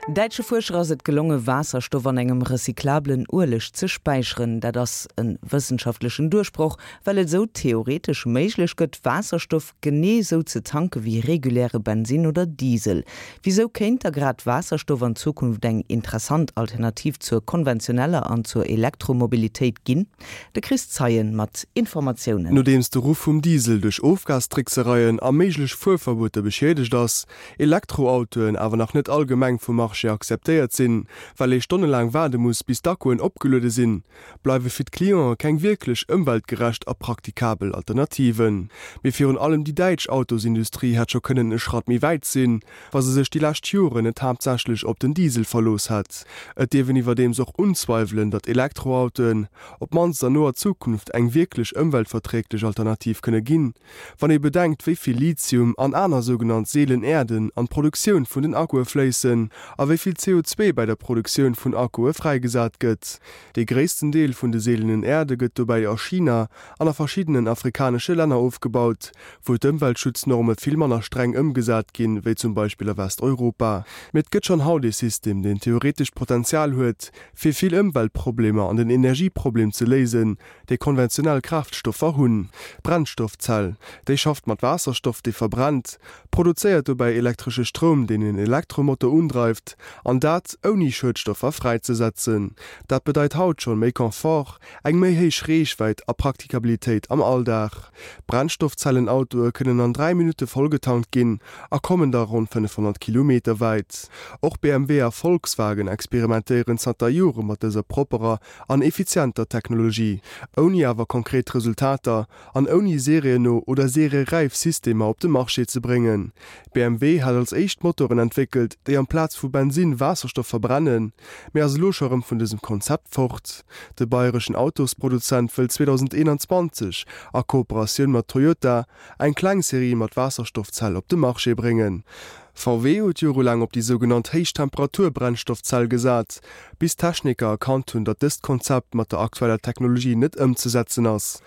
Däitsche Fuerscher ass et gelonge Waasserstoff an engem recyclabelen Ueleg ze späicheren. Dat ass e wëssenschaftlechen Duerchbroch, well et esou theoretesch méiglech gëtt, Waasserstoff genee esou ze tanke wéi reguläre Bensinn oder Diesel. Wisou kéint da grad Waasserstoff an Zukunft eng interessant Alternativ zur konventioneller an zur Elektromobilitéit ginn? De Chris Zeien mat Informatiounen. Nodeems de Ruff vum Diesel duerch Ofgastricksereien a méiglech Fuerverbueter beschiedegt ass, Elektroautoen awer nach net allgemeng vum Marché akzeptéiert sinn, well ee stonnelaang waarde muss, bis d'Akkuen opgeluede sinn, bleiwe fir d'Cliente keng wierklech ëmweltgerecht a praktikabel Alternativen. Mee virun allem déi däitsch Autosindustrie hätt scho kënnen e Schratt méi wäit sinn, wa se sech déi lescht Joren net haaptsächlech op den Diesel verlooss hätt. Et dierf een iwwerdeems och unzweiwelen, datt Elektroautoen, op d'mannst an noer Zukunft, eng wierklech ëmweltverträglech Alternativ kënne ginn. Wann ee bedenkt, wéi vill Lithium an aner sougenannt seelen Äerden an d'Produktioun vun den Akkue fléissen a wéi vill CO2 bäi der Produktioun vun Akkue fräigesat gëtt. Dee gréissten Deel vun de seelenen Äerde gëtt dobäi a China an a verschiddenen afrikanesche Länner ofgebaut, wou d'Ëmweltschutznorme vill manner streng ëmgesat ginn, wéi zum Beispill a Westeuropa. Mee et gëtt schonn haut ee System, deen theoretesch d'Potenzial huet, fir vill Ëmweltproblemer an den Energieproblem ze léisen, déi konventionell Kraaftstoffer hunn. D'Brennstoffzell, déi schafft mat Waasserstoff, dee verbrennt, produzéiert dobäi elektresche Stroum, deen en Elektromotor undreift, an dat ouni Schuedstoffer fräizesetzen. Dat bedeit haut schonn méi Confort, eng méi héich Reechwäit a Praktikabilitéit am Alldag. Brennstoffzellenautoe kënnen an 3 Minutte vollgetankt ginn a kommen da ronn 500 Kilometer wäit. Och BMW a Volkswagen experimentéieren zanter Jore mat dëser propperer an effizienter Technologie, ouni awer konkret Resultater an ouni serienno oder serieräif Systemer op de Marché ze bréngen. BMW hat als éischt Motoren entwéckelt, déi amplaz vu Bensinn Waasserstoff verbrennen, mee ass elo scho rëm vun dësem Konzept fort. De bayreschen Autosproduzent wëll 2021 a Kooperatioun mat Toyota eng kleng Serie mat Waasserstoffzell op de Marché bréngen. VW huet jorelaang op déi sougenannt Héichtemperatur-Brennstoffzell gesat, bis d'Techniker erkannt hunn, datt dëst Konzept mat der aktueller Technologie net ëmzesetzen ass.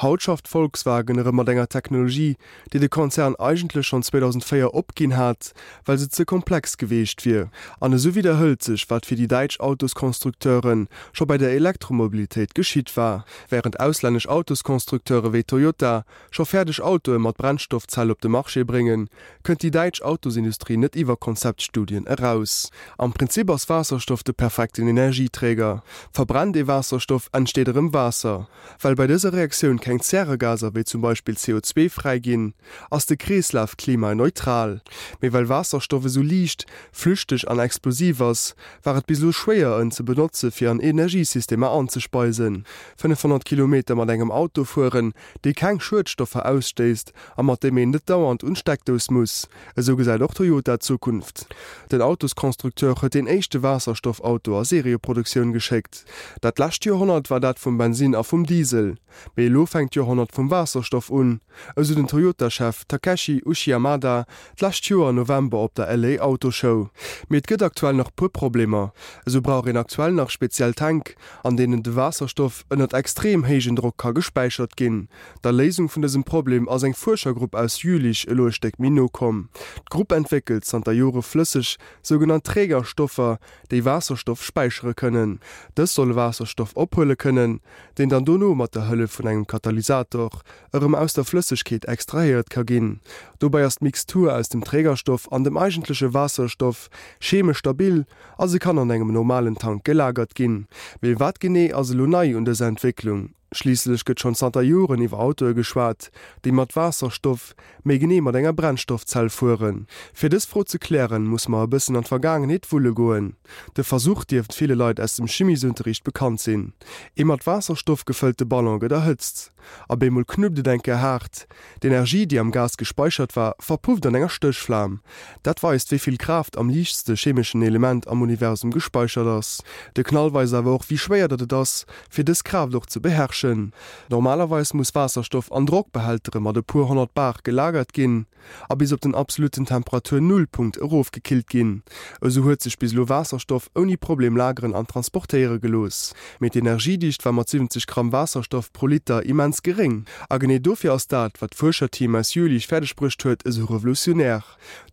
Haut schafft Volkswagen erëm mat enger Technologie, déi de Konzern eigentlech schonn 2004 opginn hat, well se ze komplex geweecht wier. An esou widderhëlt sech, wat fir déi däitsch Autosconstructeure scho bei der Elektromobilitéit geschitt war. Wärend auslännesch Autosconstructeure wéi Toyota scho fäerdeg Autoe mat Brennstoffzell op de Marché bréngen, kënnt déi däitsch Autosindustrie net iwwer Konzeptstudien eraus. Am Prinzip ass Waasserstoff de perfekten Energieträger. Verbrennt ee Waasserstoff, entsteet erëm Waasser. Well bei dëser Reaktioun keng Zäregaser wéi zum Beispill CO2 fräi ginn, ass de Kreeslaf klimaneutral. Mee well Waasserstoff esou liicht, flüchteg an explosiv ass, war et bis elo schwéier en ze benotze fir an Energiesystemer anzespeisen. 500 Kilometer mat engem Auto fueren, dee keng Schuedstoffer ausstéisst a mat deem een net dauernd un d'Steckdous muss. Esou gesäit och Toyota d'Zukunft. Den Autosconstructeur huet deen éischte Waasserstoffauto a Serieproduktioun geschéckt. Dat lescht Joerhonnert war dat vum Bensinn a vum Diesel. Mee elo fänkt d'Joerhonnert vum Waasserstoff un, esou den Toyota-Chef Takeshi Uchiyamada d'lescht Joer November op der LA Auto Show. Mee et gëtt aktuell nach puer Problemer. Esou brauch een aktuell nach speziell Tank, an deenen de Waasserstoff ënnert extrem héijen Drock ka gespäichert ginn. Der Léisung vun dësem Problem ass eng Fuerschergrupp aus Jülich elo e Stéck méi no komm. D'Grupp entwéckelt zanter Jore flësseg sougenannt Trägerstoffer, déi Waasserstoff späichere kënnen. Dës solle Waasserstoff ophuele kënnen, deen dann dono mat der Hëllef vun engem Katalysator erëm aus der Flëssegkeet extrahéiert ka ginn. Dobäi ass d'Mixtur aus dem Trägerstoff an dem eigentleche Waasserstoff chemesch stabil a se kann an engem normalen Tank gelagert ginn. Mee wat genee ass elo nei un dëser Entwécklung? Schliisslech gëtt schonn zanter Joren iwwer Autoe geschwat, déi mat Waasserstoff, méi genee mat enger Brennstoffzell fueren. Fir dës Fro ze klären, musse mer e bëssen an d'Vergaangenheet wulle goen. De Versuch dierft ville Leit aus dem Chimiesunterricht bekannt sinn. Ee mat Waasserstoff gefëllte Ballon gëtt erhëtzt. Op eemol knuppt et eng Kéier haart. D'Energie, déi am Gas gespeichert war, verpufft an enger Stéchflam. Dat weist, wéi vill Kraaft am liichtste chemeschen Element am Universum gespeichert ass. De Knall weist awer och, wéi schwéier datt et ass, fir dës Kraaft och ze beherrschen. Normalerweis muss Waasserstoff an Drockbehältere mat e puer 100 Bar gelagert ginn a bis op den absolutten Temperatur-Nullpunkt erofgekillt ginn. Esou huet sech bis elo Waasserstoff ouni Problem lageren an transportéiere gelooss. Mee d'Energiedicht war mat 70 Gramm Waasserstoff pro Liter immens. immens geréng. A genee dofir ass dat, wat d'Fuerscherteam aus Jülich fäerdeg bruecht huet, esou revolutionär.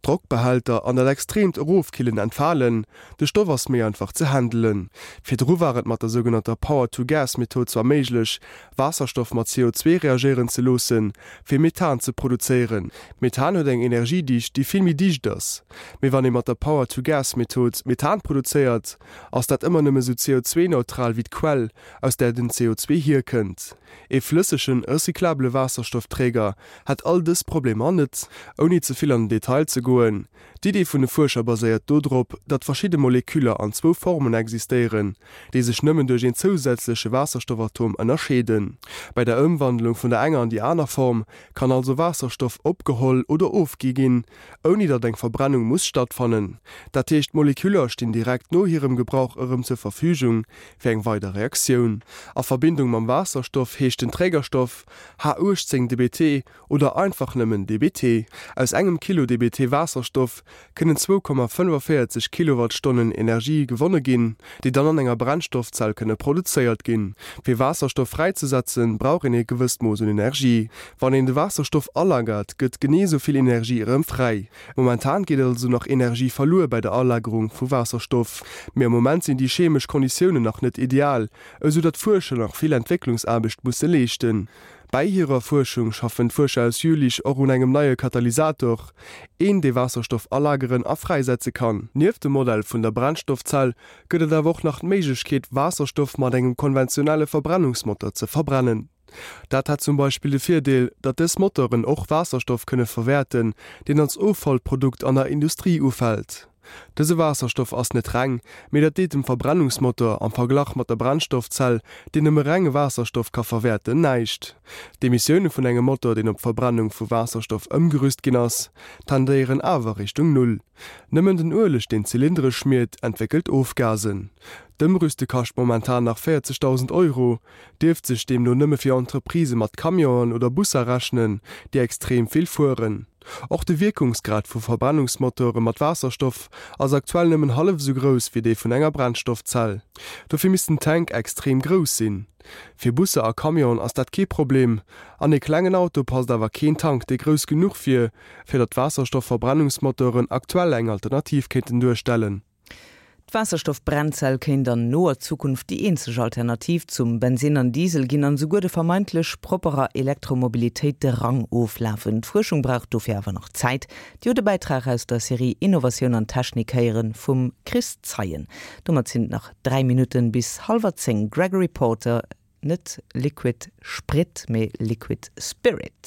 D'Drockbehälter an dat extreemt Erofkillen entfalen, de Stoff ass méi einfach ze handelen. Virdru war et mat der sougenannter Power-to-Gas-Method zwar méiglech, Waasserstoff mat CO2 reagéieren ze loossen, fir Methan ze produzéieren. Methan huet eng Energiedicht, déi vill méi dicht ass. Mee wann ee mat der Power-to-Gas-Method Methan produzéiert, ass dat ëmmer nëmme sou CO2-neutral wéi d'Quell, aus där den CO2 hierkënnt. Ee flëssegen, recyclabele Waasserstoffträger hätt all dës Problemer net. Ouni ze vill an den Detail ze goen, D'Idee vun de Fuerscher baséiert dodrop, datt verschidde Moleküller an zwou Formen existéieren, déi sech nëmmen duerch een zousätzleche Waasserstoffatom ënnerscheeden. Bei der Ëmwandlung vun der enger an déi aner Form kann also Waasserstoff opgeholl oder ofgi ginn, ouni datt eng Verbrennung muss stattfannen. Dat heescht, d'Moleküller stinn direkt no hirem Gebrauch erëm zur Verfügung fir eng weider Reaktioun. A Verbindung mam Waasserstoff heescht den Trägerstoff H18-DBT oder einfach nëmmen DBT. Aus engem Kilo DBT Waasserstoff kënnen 2,45 Kilowattstonnen Energie gewonne ginn, déi dann an enger Brennstoffzell kënne produzéiert ginn. Fir Waasserstoff fräizesetzen, brauch een ee gewësst Mooss un Energie. Wann een de Waasserstoff alagert, gëtt genee esou vill Energie erëm fräi. Momentan geet also nach Energie verluer bei der Alagerung vu Waasserstoff. Mee am Moment sinn déi chemesch Konditiounen nach net ideal, esou datt d'Fuerscher nach vill Entwécklungsaarbecht musse leeschten. Bäi hirer Fuerschung schaffen d'Fuerscher aus Jülich och un engem neie Katalysator, een dee Waasserstoff alageren a fräisetze kann. Nieft dem Modell vun der Brennstoffzell gëtt et awer och nach d'Méiglechkeet Waasserstoff mat engem konventionelle Verbrennungsmotor ze verbrennen. Dat hätt zum Beispill de Virdeel, datt dës Motoren och Waasserstoff kënne verwäerten, deen als Offallprodukt an der Industrie ufält. Dëse Waasserstoff ass net reng, mee dat deet dem Verbrennungsmotor, am Verglach mat der Brennstoffzell, deen nëmme renge Waasserstoff ka verwäerten, näischt. D'Emissioune vun engem Motor, deen op d'Verbrennung vu Waasserstoff ëmgerüst ginn ass, tendéieren awer Richtung Null. Nëmmen den Ueleg, deen d'Zylindere schmiert, entwéckelt Ofgasen. D'Ëmrüste kascht momentan nach 40.000 Euro, dierft sech deemno nëmme fir Entreprisë mat Camionen oder Busser rechnen, déi extrem vill fueren. Och de Wierkungsgrad vu Verbrennungsmotore mat Waasserstoff ass aktuell nëmmen hallef esou grouss wéi dee vun enger Brennstoffzell. Dofir misst den Tank extrem grouss sinn. Fir Busser a Camionen ass dat kee Problem. An ee klengen Auto passt awer keen Tank, dee grouss genuch wier, fir datt Waasserstoff-Verbrennungsmotoren aktuell eng Alternativ kéinten duerstellen. D'Waasserstoff-Brennzell kéint an noer Zukunft déi eenzeg Alternativ zum Bensinn an Diesel ginn an esouguer de vermeintlech propperer Elektromobilitéit de Rang oflafen. D'Fuerschung brauch dofir awer nach Zäit. Dir hutt e Bäitrag aus der Serie Innovatioun an Technik héieren vum Chris Zeien. Domat sinn et nach 3 Minutten bis hallwer 10. Gregory Porter, Net Liquid Sprit, mee Liquid Spirit.